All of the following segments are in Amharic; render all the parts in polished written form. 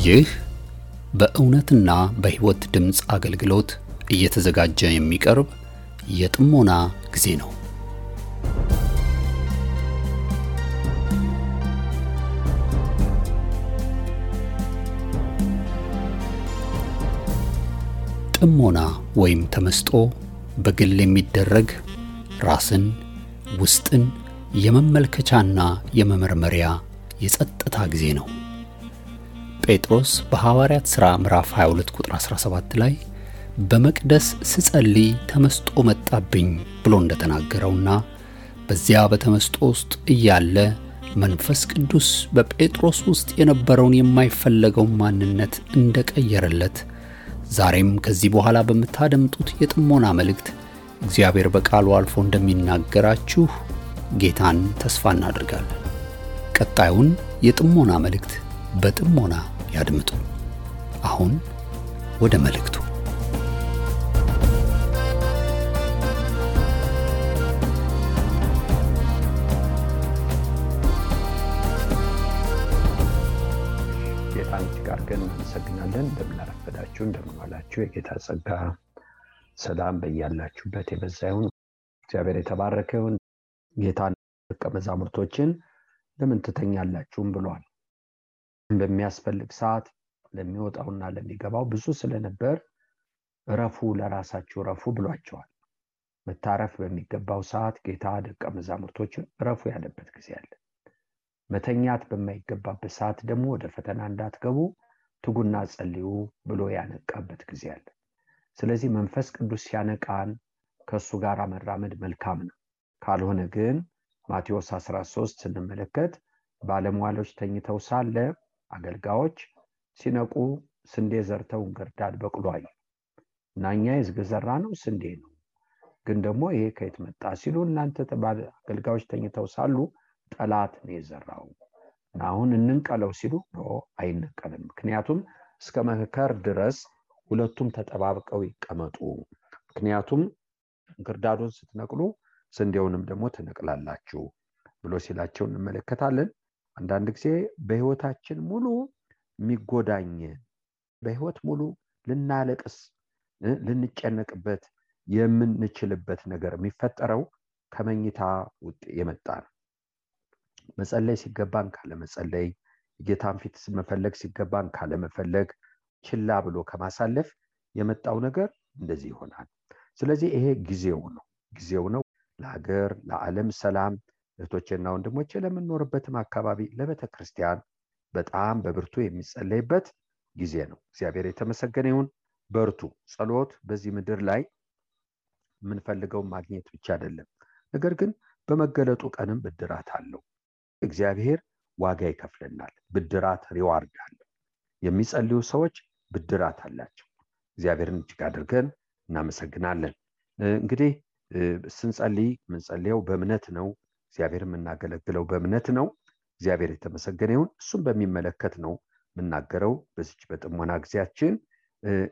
ይህ በእውነትና በሕይወት ድምጽ አገልግሎት እየተዘጋጀ የሚቀርብ የጥሞና ጊዜ ነው። ጥሞና ወይም ተመስጦ በግል የሚደረግ ራስን ውስጥን የመመልከቻና የመመርመሪያ የጸጥታ ጊዜ ነው። ጴጥሮስ በሐዋርያት ሥራ ምዕራፍ 22 ቁጥር 17 ላይ በመቅደስ ስጸልይ ተመስጦ መጣብኝ ብሎ እንደተናገረውና በዚያ በተመስጦ ውስጥ እያለ መንፈስ ቅዱስ በጴጥሮስ ውስጥ የነበረውን የማይፈለገው ማንነት እንደቀየረለት ዛሬም ከዚህ በኋላ በመታደምጡት የጥሞና መልእክት እግዚአብሔር በቃሉ አልፎ እንደሚናገራችሁ ጌታን ተስፋ እናደርጋለን። ቀጣዩን የጥሞና መልእክት በጥሞና ያድምጡ። አሁን ወደ መልእክቱ። ጌታን ጋርገን እናመሰግናለን። እንደምናረፈዳችሁ እንደምንዋላችሁ የጌታ ጸጋ ሰላም በእያላችሁበት የበዛ ይሁን። እግዚአብሔር የተባረከ ይሁን። ጌታን ደቀ መዛሙርቶችን ለምን ትተኛላችሁም ብሏል። በሚያስፈልግ ሰዓት ለሚወጣውና ለሚገባው ብዙ ስለነበር ረፉ፣ ለራሳችሁ ረፉ ብሏቸዋል። መታረፍ በሚገባው ሰዓት ጌታ ደቀ መዛሙርቶችን ረፉ ያለበት ጊዜ አለ። መተኛት በማይገባበት ሰዓት ደግሞ ወደ ፈተና እንዳትገቡ ትጉና ጸልዩ ብሎ ያነቃበት ጊዜ አለ። ስለዚህ መንፈስ ቅዱስ ሲያነቃን ከሱ ጋር መራመድ መልካም ነው። ካልሆነ ግን ማቴዎስ 13 ስንመለከት ባለሟሎች ተኝተው ሳለ አገልጋዮች ሲነቁ ስንዴ ዘርተው እንክርዳድ በቅሎ አዩ። እኛ የዘራ ነው ስንዴ ነው፣ ግን ደግሞ ይሄ ከየት መጣ ሲሉ እናንተ አገልጋዮች ተኝተው ሳሉ ጠላት ነው የዘራው፣ አሁን እንንቀለው ሲሉ ነው አይነቀልም። ምክንያቱም እስከ መከር ድረስ ሁለቱም ተጠባብቀው ይቀመጡ። ምክንያቱም እንክርዳዱን ስትነቅሉ ስንዴውንም ደግሞ ትነቅላላችሁ ብሎ ሲላቸው እንመለከታለን። አንዳንድ ጊዜ በህይወታችን ሙሉ የሚጎዳኝ በህይወት ሙሉ ልናለቅስ ልንጨነቅበት የምንችልበት ነገር የሚፈጠረው ከመኝታ ውጥ የመጣ ነው። መጸለይ ሲገባን ካለ መጸለይ፣ ጌታን ፊት መፈለግ ሲገባን ካለ መፈለግ፣ ችላ ብሎ ከማሳለፍ የመጣው ነገር እንደዚህ ይሆናል። ስለዚህ ይሄ ጊዜው ነው ለሀገር ለዓለም ሰላም እህቶቼና ወንድሞቼ ለምንኖርበትም አካባቢ ለቤተ ክርስቲያን በጣም በብርቱ የሚጸለይበት ጊዜ ነው። እግዚአብሔር የተመሰገነ ይሁን። በርቱ። ጸሎት በዚህ ምድር ላይ የምንፈልገው ማግኘት ብቻ አይደለም፣ ነገር ግን በመገለጡ ቀንም ብድራት አለው። እግዚአብሔር ዋጋ ይከፍለናል። ብድራት ሪዋርድ አለው። የሚጸልዩ ሰዎች ብድራት አላቸው። እግዚአብሔርን እጅግ አድርገን እናመሰግናለን። እንግዲህ ስንጸልይ ምንጸልየው በእምነት ነው። እግዚአብሔር የምናገለግለው በእምነት ነው። እግዚአብሔር የተመሰገነ ይሁን። እሱም በሚመለከት ነው የምናገረው በዚች በጥሞና ጊዜያችን።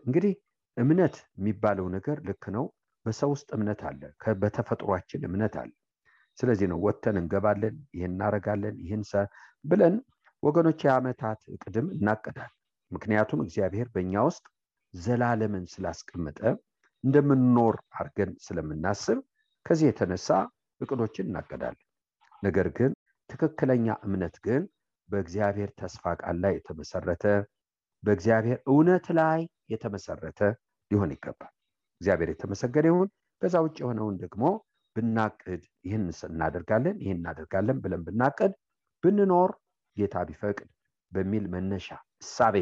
እንግዲህ እምነት የሚባለው ነገር ልክ ነው። በሰው ውስጥ እምነት አለ፣ በተፈጥሯችን እምነት አለ። ስለዚህ ነው ወጥተን እንገባለን፣ ይሄን እናረጋለን፣ ይሄን ብለን ወገኖች የዓመታት ቅድም እናቀዳለን። ምክንያቱም እግዚአብሔር በእኛ ውስጥ ዘላለምን ስላስቀመጠ እንደምንኖር አድርገን ስለምናስብ ከዚህ የተነሳ እቅዶችን እናቀዳለን። ነገር ግን ትክክለኛ እምነት ግን በእግዚአብሔር ተስፋ ቃል ላይ የተመሰረተ በእግዚአብሔር እውነት ላይ የተመሰረተ ሊሆን ይገባል። እግዚአብሔር የተመሰገነ ይሁን። ከዛ ውጭ የሆነውን ደግሞ ብናቅድ ይህን እናደርጋለን ብለን ብናቅድ ብንኖር ጌታ ቢፈቅድ በሚል መነሻ እሳቤ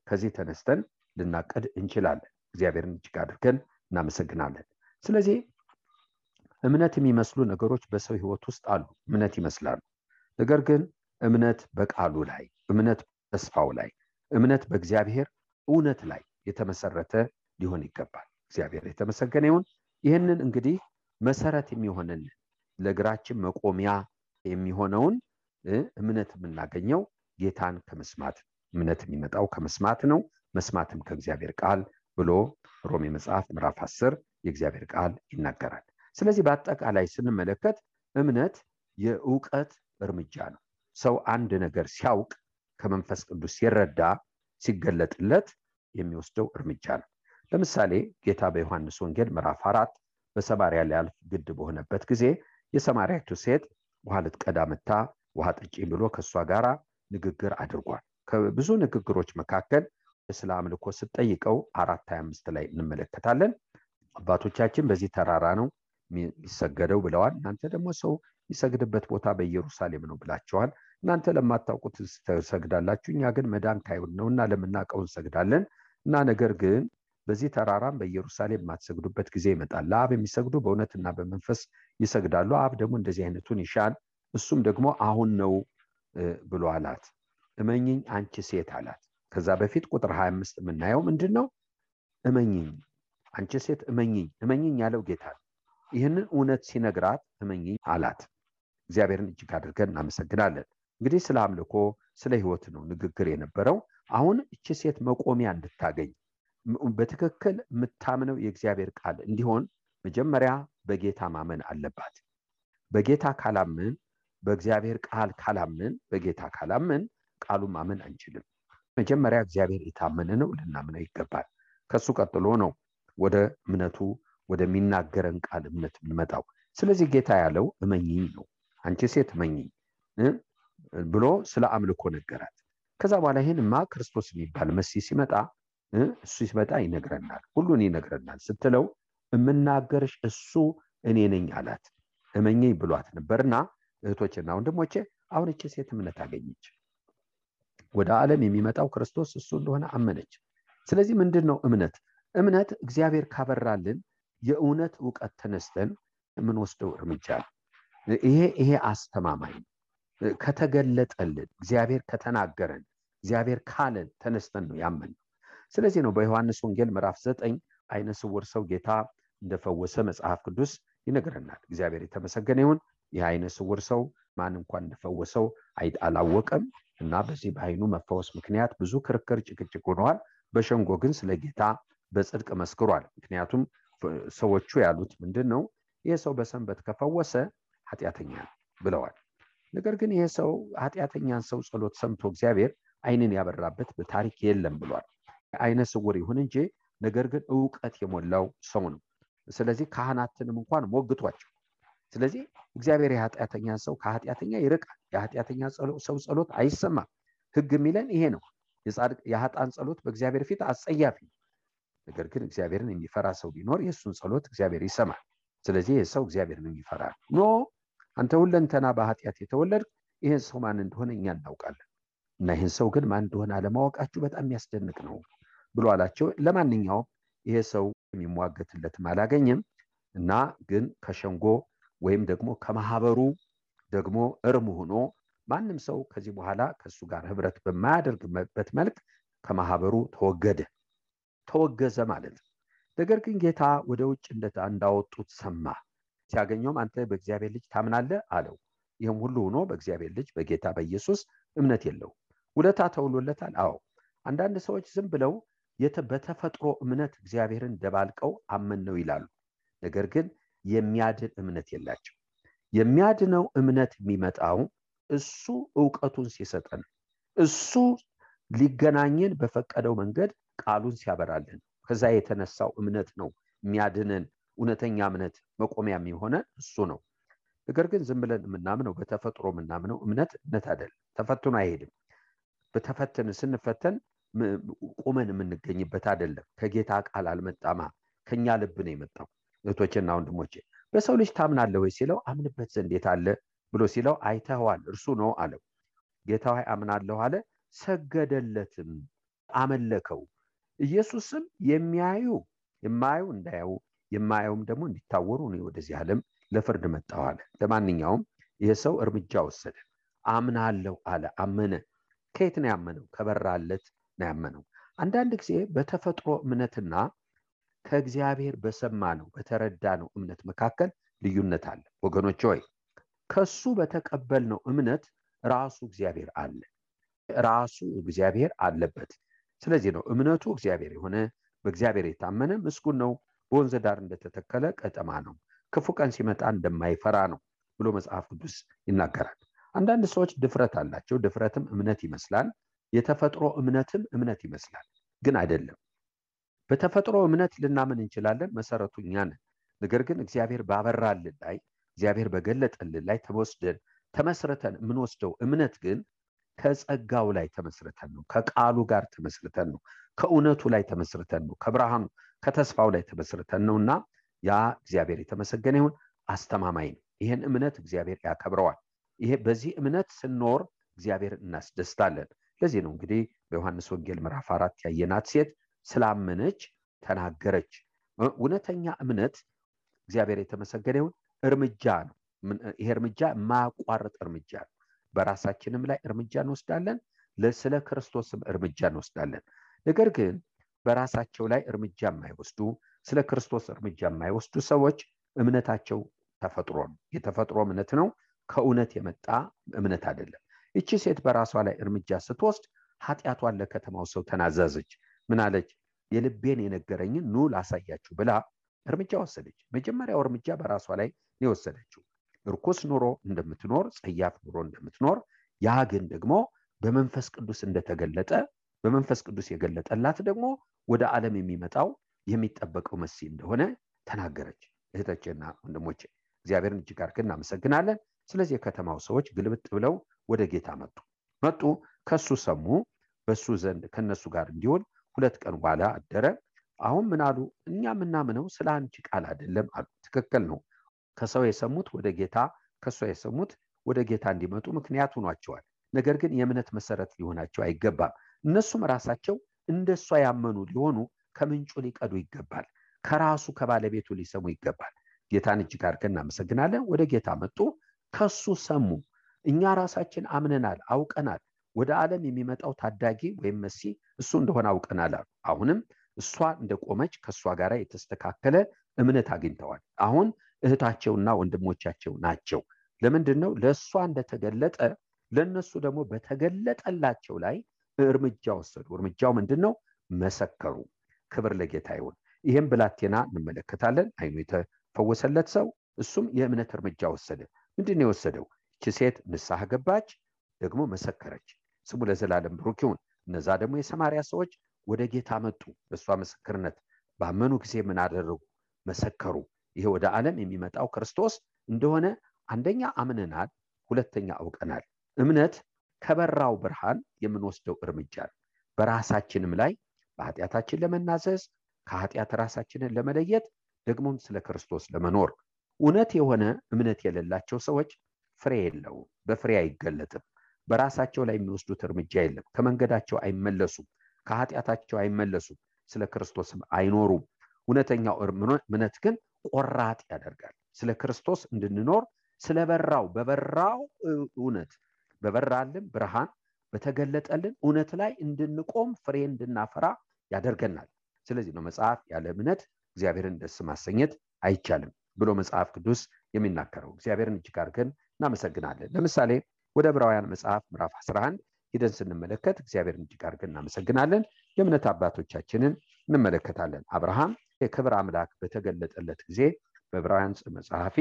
ከዚህ ተነስተን ልናቅድ እንችላለን። እግዚአብሔርን እጅግ አድርገን እናመሰግናለን። ስለዚህ እምነት የሚመስሉ ነገሮች በሰው ህይወት ውስጥ አሉ። እምነት ይመስላሉ። ነገር ግን እምነት በቃሉ ላይ፣ እምነት በተስፋው ላይ፣ እምነት በእግዚአብሔር እውነት ላይ የተመሰረተ ሊሆን ይገባል። እግዚአብሔር የተመሰገነ ይሁን። ይህንን እንግዲህ መሰረት የሚሆነን ለእግራችን መቆሚያ የሚሆነውን እምነት የምናገኘው ጌታን ከመስማት፣ እምነት የሚመጣው ከመስማት ነው፣ መስማትም ከእግዚአብሔር ቃል ብሎ ሮሜ መጽሐፍ ምዕራፍ 10 የእግዚአብሔር ቃል ይናገራል። ስለዚህ በአጠቃላይ ስንመለከት እምነት የእውቀት እርምጃ ነው። ሰው አንድ ነገር ሲያውቅ ከመንፈስ ቅዱስ ሲረዳ ሲገለጥለት የሚወስደው እርምጃ ነው። ለምሳሌ ጌታ በዮሐንስ ወንጌል ምዕራፍ 4 በሰማርያ ሊያልፍ ግድ በሆነበት ጊዜ የሰማርያቱ ሴት ውሃ ልትቀዳ መጣ ውሃ ጠጪኝ ብሎ ከሷ ጋራ ንግግር አድርጓል። ከብዙ ንግግሮች መካከል ስለ አምልኮ ስትጠይቀው 4:25 ላይ እንመለከታለን። አባቶቻችን በዚህ ተራራ ነው የሚሰገደው ብለዋል፣ እናንተ ደግሞ ሰው የሚሰግድበት ቦታ በኢየሩሳሌም ነው ብላችኋል። እናንተ ለማታውቁት ትሰግዳላችሁ፣ እኛ ግን መዳን ካይሁን ነውና ለምናውቀው እንሰግዳለን። እና ነገር ግን በዚህ ተራራም በኢየሩሳሌም የማትሰግዱበት ጊዜ ይመጣል። ለአብ የሚሰግዱ በእውነትና በመንፈስ ይሰግዳሉ፣ አብ ደግሞ እንደዚህ አይነቱን ይሻል፣ እሱም ደግሞ አሁን ነው ብሎ አላት። እመኚኝ አንቺ ሴት አላት። ከዛ በፊት ቁጥር 25 የምናየው ምንድነው? እመኚኝ አንቺ ሴት እመኚኝ ያለው ጌታ ነው። ይህንን እውነት ሲነግራት እመኚኝ አላት። እግዚአብሔርን እጅግ አድርገን እናመሰግናለን። እንግዲህ ስለ አምልኮ ስለ ህይወት ነው ንግግር የነበረው። አሁን እቺ ሴት መቆሚያ እንድታገኝ በትክክል የምታምነው የእግዚአብሔር ቃል እንዲሆን መጀመሪያ በጌታ ማመን አለባት። በጌታ ካላምን በእግዚአብሔር ቃል ካላምን በጌታ ካላምን ቃሉን ማመን አንችልም። መጀመሪያ እግዚአብሔር የታመነ ነው ልናምነው ይገባል። ከሱ ቀጥሎ ነው ወደ እምነቱ ወደሚናገረን ቃል እምነት የምንመጣው። ስለዚህ ጌታ ያለው እመኚኝ ነው። አንቺ ሴት እመኚኝ ብሎ ስለ አምልኮ ነገራት። ከዛ በኋላ ይሄንማ ክርስቶስ የሚባል መሲህ ሲመጣ እሱ ሲመጣ ይነግረናል፣ ሁሉን ይነግረናል ስትለው እምናገርሽ እሱ እኔ ነኝ አላት። እመኚኝ ብሏት ነበርና እህቶችና ወንድሞቼ አሁን እቺ ሴት እምነት አገኘች። ወደ ዓለም የሚመጣው ክርስቶስ እሱ እንደሆነ አመነች። ስለዚህ ምንድነው እምነት? እምነት እግዚአብሔር ካበራልን የእውነት ዕውቀት ተነስተን የምንወስደው እርምጃ ነው። ይሄ አስተማማኝ ከተገለጠልን እግዚአብሔር ከተናገረን እግዚአብሔር ካለን ተነስተን ነው ያመን። ስለዚህ ነው በዮሐንስ ወንጌል ምዕራፍ 9 አይነ ስውር ሰው ጌታ እንደፈወሰ መጽሐፍ ቅዱስ ይነግረናል። እግዚአብሔር የተመሰገነ ይሁን። ይህ አይነ ስውር ሰው ማን እንኳን እንደፈወሰው አላወቀም እና በዚህ በአይኑ መፈወስ ምክንያት ብዙ ክርክር ጭቅጭቅ ሆነዋል። በሸንጎ ግን ስለ ጌታ በጽድቅ መስክሯል። ምክንያቱም ሰዎቹ ያሉት ምንድነው? ይሄ ሰው በሰንበት ከፈወሰ ኃጢአተኛ ብለዋል። ነገር ግን ይሄ ሰው ኃጢአተኛን ሰው ጸሎት ሰምቶ እግዚአብሔር አይንን ያበራበት በታሪክ የለም ብሏል። አይነ ስውር ይሁን እንጂ ነገር ግን ዕውቀት የሞላው ሰው ነው። ስለዚህ ካህናትንም እንኳን ሞግቷቸው። ስለዚህ እግዚአብሔር የኃጢአተኛን ሰው ከኃጢአተኛ ይርቃል። የኃጢአተኛ ሰው ጸሎት አይሰማም። ሕግ የሚለን ይሄ ነው። የኃጥአን ጸሎት በእግዚአብሔር ፊት አጸያፊ ነው። ነገር ግን እግዚአብሔርን የሚፈራ ሰው ቢኖር የእሱን ጸሎት እግዚአብሔር ይሰማል። ስለዚህ ይህ ሰው እግዚአብሔርን የሚፈራ ኖ አንተ ሁለንተና በኃጢአት የተወለድክ ይህን ሰው ማን እንደሆነ እኛ እናውቃለን እና ይህን ሰው ግን ማን እንደሆነ አለማወቃችሁ በጣም የሚያስደንቅ ነው ብሎ አላቸው። ለማንኛውም ይሄ ሰው የሚሟገትለትም አላገኘም እና ግን ከሸንጎ ወይም ደግሞ ከማህበሩ ደግሞ እርም ሆኖ ማንም ሰው ከዚህ በኋላ ከሱ ጋር ህብረት በማያደርግበት መልክ ከማህበሩ ተወገዘ ማለት ነው። ነገር ግን ጌታ ወደ ውጭ እንዳወጡት ሰማ። ሲያገኘውም አንተ በእግዚአብሔር ልጅ ታምናለህ አለው። ይህም ሁሉ ሆኖ በእግዚአብሔር ልጅ በጌታ በኢየሱስ እምነት የለው። ውለታ ተውሎለታል። አዎ አንዳንድ ሰዎች ዝም ብለው በተፈጥሮ እምነት እግዚአብሔርን ደባልቀው አመን ነው ይላሉ። ነገር ግን የሚያድን እምነት የላቸው። የሚያድነው እምነት የሚመጣው እሱ ዕውቀቱን ሲሰጠን እሱ ሊገናኘን በፈቀደው መንገድ ቃሉን ሲያበራልን ከዛ የተነሳው እምነት ነው የሚያድነን። እውነተኛ እምነት መቆሚያ የሚሆነን እሱ ነው። ነገር ግን ዝም ብለን የምናምነው በተፈጥሮ የምናምነው እምነት አይደለም። ተፈትኖ አይሄድም። በተፈተን ስንፈተን ቁመን የምንገኝበት አይደለም። ከጌታ ቃል አልመጣማ ከኛ ልብ ነው የመጣው። እህቶችና ወንድሞቼ በሰው ልጅ ታምናለህ ወይ ሲለው አምንበት ዘንድ የት አለ ብሎ ሲለው አይተኸዋል እርሱ ነው አለው። ጌታ ሆይ አምናለሁ አለ። ሰገደለትም አመለከው። ኢየሱስም የማያዩ እንዳያዩ የማያዩም ደግሞ እንዲታወሩ ነው ወደዚህ ዓለም ለፍርድ መጣሁ አለ። ለማንኛውም ይሄ ሰው እርምጃ ወሰደ። አምናለሁ አለ። አመነ። ከየት ነው ያመነው? ከበራለት ነው ያመነው። አንዳንድ ጊዜ በተፈጥሮ እምነትና ከእግዚአብሔር በሰማነው በተረዳነው እምነት መካከል ልዩነት አለ። ወገኖች ሆይ ከሱ በተቀበልነው እምነት ራሱ እግዚአብሔር አለ። ራሱ እግዚአብሔር አለበት። ስለዚህ ነው እምነቱ እግዚአብሔር የሆነ በእግዚአብሔር የታመነ ምስጉን ነው። በወንዝ ዳር እንደተተከለ ቀጠማ ነው፣ ክፉ ቀን ሲመጣ እንደማይፈራ ነው ብሎ መጽሐፍ ቅዱስ ይናገራል። አንዳንድ ሰዎች ድፍረት አላቸው። ድፍረትም እምነት ይመስላል። የተፈጥሮ እምነትም እምነት ይመስላል፣ ግን አይደለም። በተፈጥሮ እምነት ልናምን እንችላለን፣ መሰረቱ እኛ ነን። ነገር ግን እግዚአብሔር ባበራልን ላይ እግዚአብሔር በገለጠልን ላይ ተመስርተን የምንወስደው እምነት ግን ከጸጋው ላይ ተመስርተን ነው፣ ከቃሉ ጋር ተመስርተን ነው፣ ከእውነቱ ላይ ተመስርተን ነው፣ ከብርሃኑ ከተስፋው ላይ ተመስርተን ነውና ያ እግዚአብሔር የተመሰገነ ይሁን አስተማማኝ ነው። ይሄን እምነት እግዚአብሔር ያከብረዋል። ይሄ በዚህ እምነት ስንኖር እግዚአብሔር እናስደስታለን። ለዚህ ነው እንግዲህ በዮሐንስ ወንጌል ምዕራፍ 4 ያየናት ሴት ስላመነች ተናገረች። እውነተኛ እምነት እግዚአብሔር የተመሰገነ ይሁን እርምጃ ነው። ይሄ እርምጃ ማቋረጥ እርምጃ ነው። በራሳችንም ላይ እርምጃ እንወስዳለን፣ ስለ ክርስቶስም እርምጃ እንወስዳለን። ነገር ግን በራሳቸው ላይ እርምጃ የማይወስዱ ስለ ክርስቶስ እርምጃ የማይወስዱ ሰዎች እምነታቸው ተፈጥሮ ነው፣ የተፈጥሮ እምነት ነው፣ ከእውነት የመጣ እምነት አይደለም። እቺ ሴት በራሷ ላይ እርምጃ ስትወስድ ኃጢአቷን ለከተማው ሰው ተናዘዘች። ምን አለች? የልቤን የነገረኝን ኑ ላሳያችሁ ብላ እርምጃ ወሰደች። መጀመሪያው እርምጃ በራሷ ላይ የወሰደችው ርኩስ ኑሮ እንደምትኖር፣ ጸያፍ ኑሮ እንደምትኖር፣ ያ ግን ደግሞ በመንፈስ ቅዱስ እንደተገለጠ በመንፈስ ቅዱስ የገለጠላት ደግሞ ወደ ዓለም የሚመጣው የሚጠበቀው መሲህ እንደሆነ ተናገረች። እህቶቼና ወንድሞቼ እግዚአብሔርን እጅግ አድርገን እናመሰግናለን። ስለዚህ የከተማው ሰዎች ግልብጥ ብለው ወደ ጌታ መጡ፣ ከሱ ሰሙ። በሱ ዘንድ ከነሱ ጋር እንዲሆን 2 ቀን በኋላ አደረ። አሁን ምን አሉ? እኛ ምናምነው ስለ አንቺ ቃል አይደለም አሉ። ትክክል ነው። ከሰው የሰሙት ወደ ጌታ፣ ከሷ የሰሙት ወደ ጌታ እንዲመጡ ምክንያት ሆኗቸዋል። ነገር ግን የእምነት መሰረት ሊሆናቸው አይገባም። እነሱም ራሳቸው እንደሷ ያመኑ ሊሆኑ ከምንጩ ሊቀዱ ይገባል። ከራሱ ከባለቤቱ ሊሰሙ ይገባል። ጌታን እጅግ አድርገን እናመሰግናለን። ወደ ጌታ መጡ፣ ከሱ ሰሙ። እኛ ራሳችን አምነናል፣ አውቀናል። ወደ ዓለም የሚመጣው ታዳጊ ወይም መሲህ እሱ እንደሆነ አውቀናል አሉ። አሁንም እሷ እንደቆመች ከሷ ጋር የተስተካከለ እምነት አግኝተዋል። አሁን እህታቸውና ወንድሞቻቸው ናቸው። ለምንድነው? ለሷ እንደተገለጠ ለነሱ ደግሞ በተገለጠላቸው ላይ እርምጃ ወሰዱ። እርምጃው ምንድነው? መሰከሩ። ክብር ለጌታ ይሁን። ይሄን ብላቴና እንመለከታለን። አይኑ የተፈወሰለት ሰው እሱም የእምነት እርምጃ ወሰደ። ምንድነው የወሰደው? እቺ ሴት ንስሐ ገባች፣ ደግሞ መሰከረች። ስሙ ለዘላለም ብሩክ ይሁን። እነዛ ደግሞ የሰማርያ ሰዎች ወደ ጌታ መጡ። በሷ ምስክርነት ባመኑ ጊዜ ምን አደረጉ? መሰከሩ። ይሄ ወደ ዓለም የሚመጣው ክርስቶስ እንደሆነ አንደኛ አምነናል፣ ሁለተኛ አውቀናል። እምነት ከበራው ብርሃን የምንወስደው እርምጃ ነው። በራሳችንም ላይ በኃጢአታችን ለመናዘዝ፣ ከኃጢአት ራሳችንን ለመለየት፣ ደግሞም ስለ ክርስቶስ ለመኖር። እውነት የሆነ እምነት የሌላቸው ሰዎች ፍሬ የለውም፣ በፍሬ አይገለጥም። በራሳቸው ላይ የሚወስዱት እርምጃ የለም። ከመንገዳቸው አይመለሱም፣ ከኃጢአታቸው አይመለሱም፣ ስለ ክርስቶስም አይኖሩም። እውነተኛው እምነት ግን ቆራጥ ያደርጋል። ስለ ክርስቶስ እንድንኖር በበራው እውነት በበራልን ብርሃን በተገለጠልን እውነት ላይ እንድንቆም ፍሬ እንድናፈራ ያደርገናል። ስለዚህ ነው መጽሐፍ ያለ እምነት እግዚአብሔርን ደስ ማሰኘት አይቻልም ብሎ መጽሐፍ ቅዱስ የሚናገረው። እግዚአብሔርን እጅግ አድርገን እናመሰግናለን። ለምሳሌ ወደ ዕብራውያን መጽሐፍ ምዕራፍ 11 ሄደን ስንመለከት እግዚአብሔርን እጅግ አድርገን እናመሰግናለን። የእምነት አባቶቻችንን እንመለከታለን። አብርሃም የክብር አምላክ በተገለጠለት ጊዜ በዕብራውያን መጽሐፊ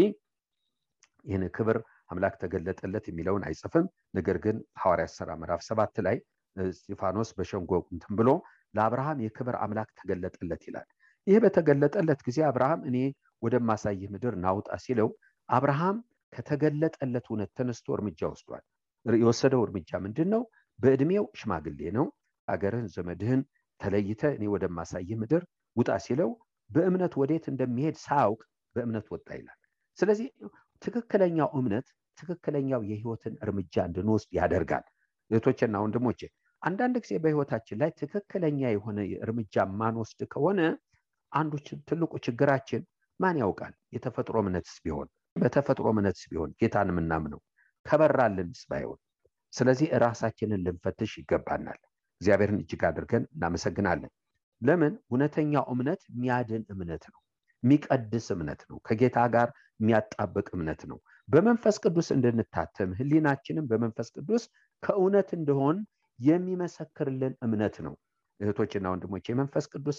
ይህን ክብር አምላክ ተገለጠለት የሚለውን አይጽፍም። ነገር ግን ሐዋርያት ሥራ ምዕራፍ 7 ላይ እስጢፋኖስ በሸንጎ እንትን ብሎ ለአብርሃም የክብር አምላክ ተገለጠለት ይላል። ይህ በተገለጠለት ጊዜ አብርሃም እኔ ወደማሳይህ ምድር ናውጣ ሲለው አብርሃም ከተገለጠለት እውነት ተነስቶ እርምጃ ወስዷል። የወሰደው እርምጃ ምንድነው? በእድሜው ሽማግሌ ነው። አገርህን ዘመድህን ተለይተ እኔ ወደማሳይህ ምድር ውጣ ሲለው በእምነት ወዴት እንደሚሄድ ሳያውቅ በእምነት ወጣ ይላል። ስለዚህ ትክክለኛው እምነት ትክክለኛው የህይወትን እርምጃ እንድንወስድ ያደርጋል። እህቶቼና ወንድሞቼ አንዳንድ ጊዜ በህይወታችን ላይ ትክክለኛ የሆነ እርምጃ ማንወስድ ከሆነ አንዱ ትልቁ ችግራችን ማን ያውቃል? የተፈጥሮ እምነትስ ቢሆን በተፈጥሮ እምነትስ ቢሆን ጌታን የምናምነው ከበራልንስ ባይሆን። ስለዚህ ራሳችንን ልንፈትሽ ይገባናል። እግዚአብሔርን እጅግ አድርገን እናመሰግናለን። ለምን? እውነተኛው እምነት የሚያድን እምነት ነው፣ የሚቀድስ እምነት ነው፣ ከጌታ ጋር የሚያጣብቅ እምነት ነው። በመንፈስ ቅዱስ እንድንታተም ህሊናችንን በመንፈስ ቅዱስ ከእውነት እንደሆን የሚመሰክርልን እምነት ነው። እህቶችና ወንድሞች የመንፈስ ቅዱስ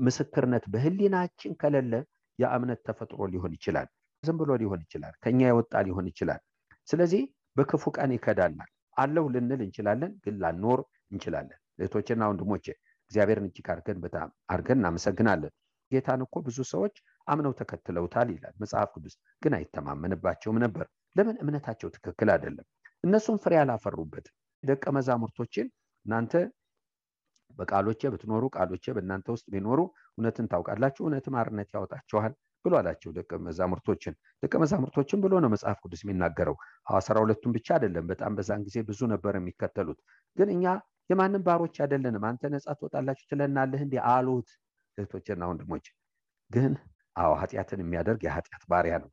ምስክርነት በህሊናችን ከሌለ ያ እምነት ተፈጥሮ ሊሆን ይችላል፣ ዝም ብሎ ሊሆን ይችላል፣ ከኛ የወጣ ሊሆን ይችላል። ስለዚህ በክፉ ቀን ይከዳናል። አለው ልንል እንችላለን፣ ግን ላንኖር እንችላለን። እህቶቼና ወንድሞቼ እግዚአብሔርን እጅግ አድርገን እናመሰግናለን። ጌታን እኮ ብዙ ሰዎች አምነው ተከትለውታል ይላል መጽሐፍ ቅዱስ፣ ግን አይተማመንባቸውም ነበር። ለምን? እምነታቸው ትክክል አይደለም። እነሱም ፍሬ አላፈሩበትም። ደቀ መዛሙርቶችን እናንተ በቃሎቼ ብትኖሩ ቃሎቼ በእናንተ ውስጥ ቢኖሩ እውነትን ታውቃላችሁ፣ እውነትም አርነት ያወጣችኋል ብሎ አላቸው ደቀ መዛሙርቶችን ብሎ ነው መጽሐፍ ቅዱስ የሚናገረው። 12ቱን ብቻ አይደለም፣ በጣም በዛን ጊዜ ብዙ ነበር የሚከተሉት። ግን እኛ የማንም ባሮች አይደለንም፣ አንተ ነጻ ትወጣላችሁ ትለናለህ እንዴ አሉት። እህቶቼና ወንድሞቼ ግን ኃጢአትን የሚያደርግ የኃጢአት ባሪያ ነው።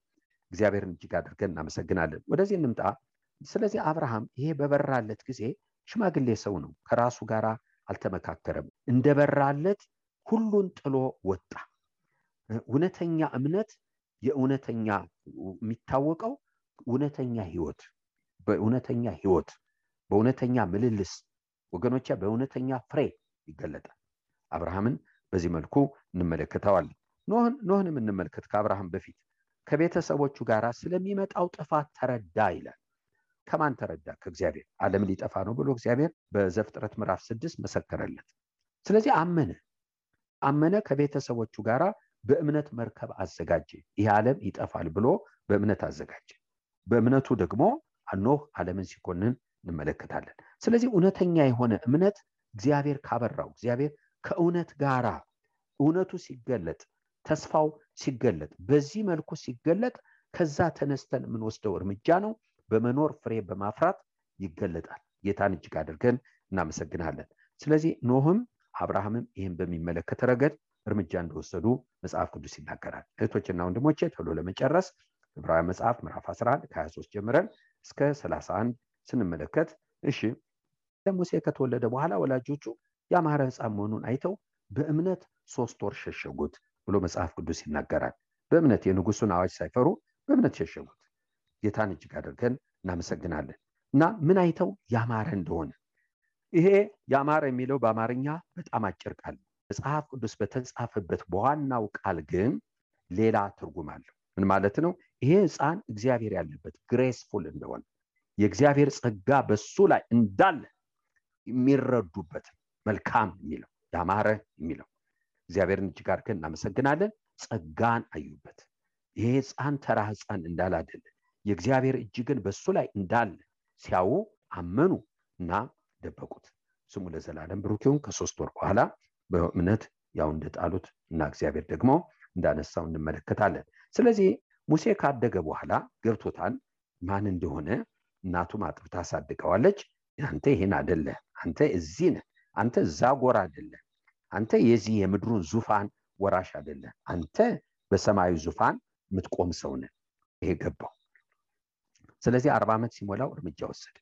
እግዚአብሔርን እጅግ አድርገን እናመሰግናለን። ወደዚህ እንምጣ። ስለዚህ አብርሃም ይሄ በበራለት ጊዜ ሽማግሌ ሰው ነው፣ ከራሱ ጋር አልተመካከረም። እንደበራለት ሁሉን ጥሎ ወጣ። እውነተኛ እምነት የእውነተኛ የሚታወቀው እውነተኛ ህይወት በእውነተኛ ምልልስ ወገኖቼ በእውነተኛ ፍሬ ይገለጣል። አብርሃምን በዚህ መልኩ እንመለከተዋለን። ኖህንም እንመልከት። ከአብርሃም በፊት ከቤተሰቦቹ ጋር ስለሚመጣው ጥፋት ተረዳ ይላል። ከማን ተረዳ? ከእግዚአብሔር። ዓለም ሊጠፋ ነው ብሎ እግዚአብሔር በዘፍጥረት ምዕራፍ 6 መሰከረለት። ስለዚህ አመነ ከቤተሰቦቹ ጋር በእምነት መርከብ አዘጋጀ። ይህ ዓለም ይጠፋል ብሎ በእምነት አዘጋጀ። በእምነቱ ደግሞ ኖህ ዓለምን ሲኮንን እንመለከታለን። ስለዚህ እውነተኛ የሆነ እምነት እግዚአብሔር ካበራው፣ እግዚአብሔር ከእውነት ጋራ እውነቱ ሲገለጥ፣ ተስፋው ሲገለጥ፣ በዚህ መልኩ ሲገለጥ ከዛ ተነስተን የምንወስደው እርምጃ ነው። በመኖር ፍሬ በማፍራት ይገለጣል። ጌታን እጅግ አድርገን እናመሰግናለን። ስለዚህ ኖህም አብርሃምም ይህን በሚመለከት ረገድ እርምጃ እንደወሰዱ መጽሐፍ ቅዱስ ይናገራል። እህቶችና ወንድሞቼ ቶሎ ለመጨረስ ዕብራውያን መጽሐፍ ምዕራፍ 11 ከ23 ጀምረን እስከ 31 ስንመለከት ሙሴ ከተወለደ በኋላ ወላጆቹ ያማረ ሕፃን መሆኑን አይተው በእምነት 3 ወር ሸሸጉት ብሎ መጽሐፍ ቅዱስ ይናገራል። በእምነት የንጉሱን አዋጅ ሳይፈሩ በእምነት ሸሸጉት። ጌታን እጅግ አድርገን እናመሰግናለን። እና ምን አይተው? ያማረ እንደሆነ። ይሄ ያማረ የሚለው በአማርኛ በጣም አጭር ቃል፣ መጽሐፍ ቅዱስ በተጻፈበት በዋናው ቃል ግን ሌላ ትርጉም አለው። ምን ማለት ነው? ይሄ ሕፃን እግዚአብሔር ያለበት ግሬስፉል እንደሆነ፣ የእግዚአብሔር ጸጋ በሱ ላይ እንዳለ የሚረዱበት መልካም የሚለው ያማረ የሚለው። እግዚአብሔርን እጅግ አድርገን እናመሰግናለን። ጸጋን አዩበት። ይሄ ሕፃን ተራ ሕፃን እንዳላደለ የእግዚአብሔር እጅ ግን በሱ ላይ እንዳለ ሲያዩ አመኑ እና ደበቁት። ስሙ ለዘላለም ብሩክ ይሁን። ከ3 ወር በኋላ በእምነት ያው እንደጣሉት እና እግዚአብሔር ደግሞ እንዳነሳው እንመለከታለን። ስለዚህ ሙሴ ካደገ በኋላ ገብቶታል ማን እንደሆነ። እናቱም አጥብታ አሳድገዋለች። አንተ ይሄን አይደለ፣ አንተ እዚህ ነህ፣ አንተ እዛ ጎራ አይደለ፣ አንተ የዚህ የምድሩን ዙፋን ወራሽ አይደለ፣ አንተ በሰማዩ ዙፋን የምትቆም ሰው ነህ። ይሄ ገባው። ስለዚህ 40 ዓመት ሲሞላው እርምጃ ወሰደ።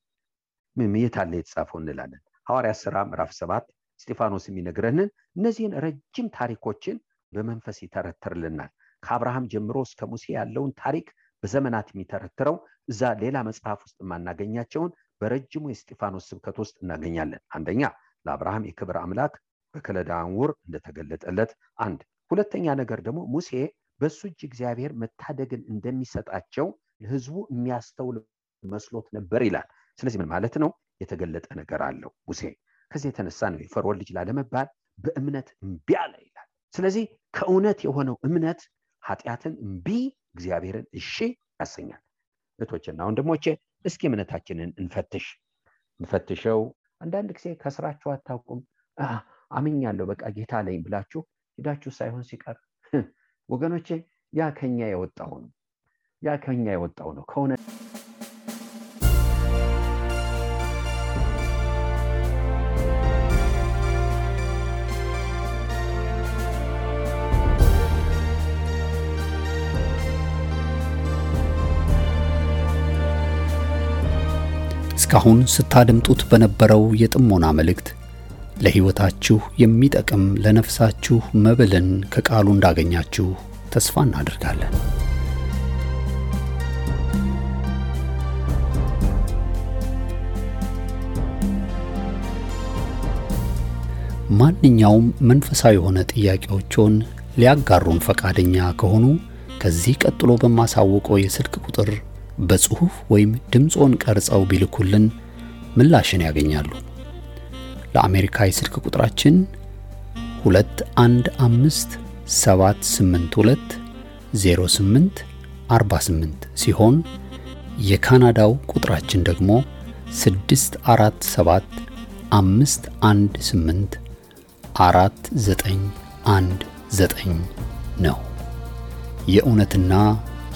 ምን የታለ የተጻፈው እንላለን። ሐዋርያት ሥራ ምዕራፍ 7 እስጢፋኖስ የሚነግረንን እነዚህን ረጅም ታሪኮችን በመንፈስ ይተረትርልናል። ከአብርሃም ጀምሮ እስከ ሙሴ ያለውን ታሪክ በዘመናት የሚተረትረው እዛ ሌላ መጽሐፍ ውስጥ ማናገኛቸውን በረጅሙ የእስጢፋኖስ ስብከት ውስጥ እናገኛለን። አንደኛ ለአብርሃም የክብር አምላክ በከለዳውያን ውር እንደተገለጠለት አንድ። ሁለተኛ ነገር ደግሞ ሙሴ በሱ እጅ እግዚአብሔር መታደግን እንደሚሰጣቸው ለሕዝቡ የሚያስተውል መስሎት ነበር ይላል። ስለዚህ ምን ማለት ነው? የተገለጠ ነገር አለው ሙሴ። ከዚህ የተነሳ ነው የፈርዖን ልጅ ላለመባል በእምነት እምቢ አለ ይላል። ስለዚህ ከእውነት የሆነው እምነት ኃጢአትን እምቢ፣ እግዚአብሔርን እሺ ያሰኛል። እህቶችና ወንድሞቼ እስኪ እምነታችንን እንፈትሸው። አንዳንድ ጊዜ ከስራችሁ አታውቁም። አምኛለሁ በቃ ጌታ ላይ ብላችሁ ሄዳችሁ ሳይሆን ሲቀር ወገኖቼ ያ ከኛ የወጣው ነው ከሆነ እስካሁን ስታደምጡት በነበረው የጥሞና መልእክት ለሕይወታችሁ የሚጠቅም ለነፍሳችሁ መብልን ከቃሉ እንዳገኛችሁ ተስፋ እናደርጋለን። ማንኛውም መንፈሳዊ የሆነ ጥያቄዎችን ሊያጋሩን ፈቃደኛ ከሆኑ ከዚህ ቀጥሎ በማሳወቀው የስልክ ቁጥር በጽሁፍ ወይም ድምጾን ቀርጸው ቢልኩልን ምላሽን ያገኛሉ። ለአሜሪካ የስልክ ቁጥራችን 2157820848 ሲሆን የካናዳው ቁጥራችን ደግሞ 6475184919 ነው። የእውነትና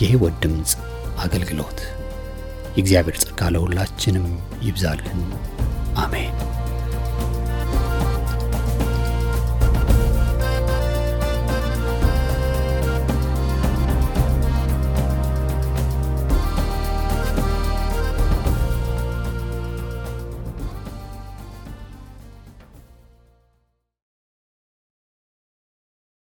የሕይወት ድምጽ አገልግሎት። የእግዚአብሔር ጸጋ ለሁላችንም ይብዛልን። አሜን።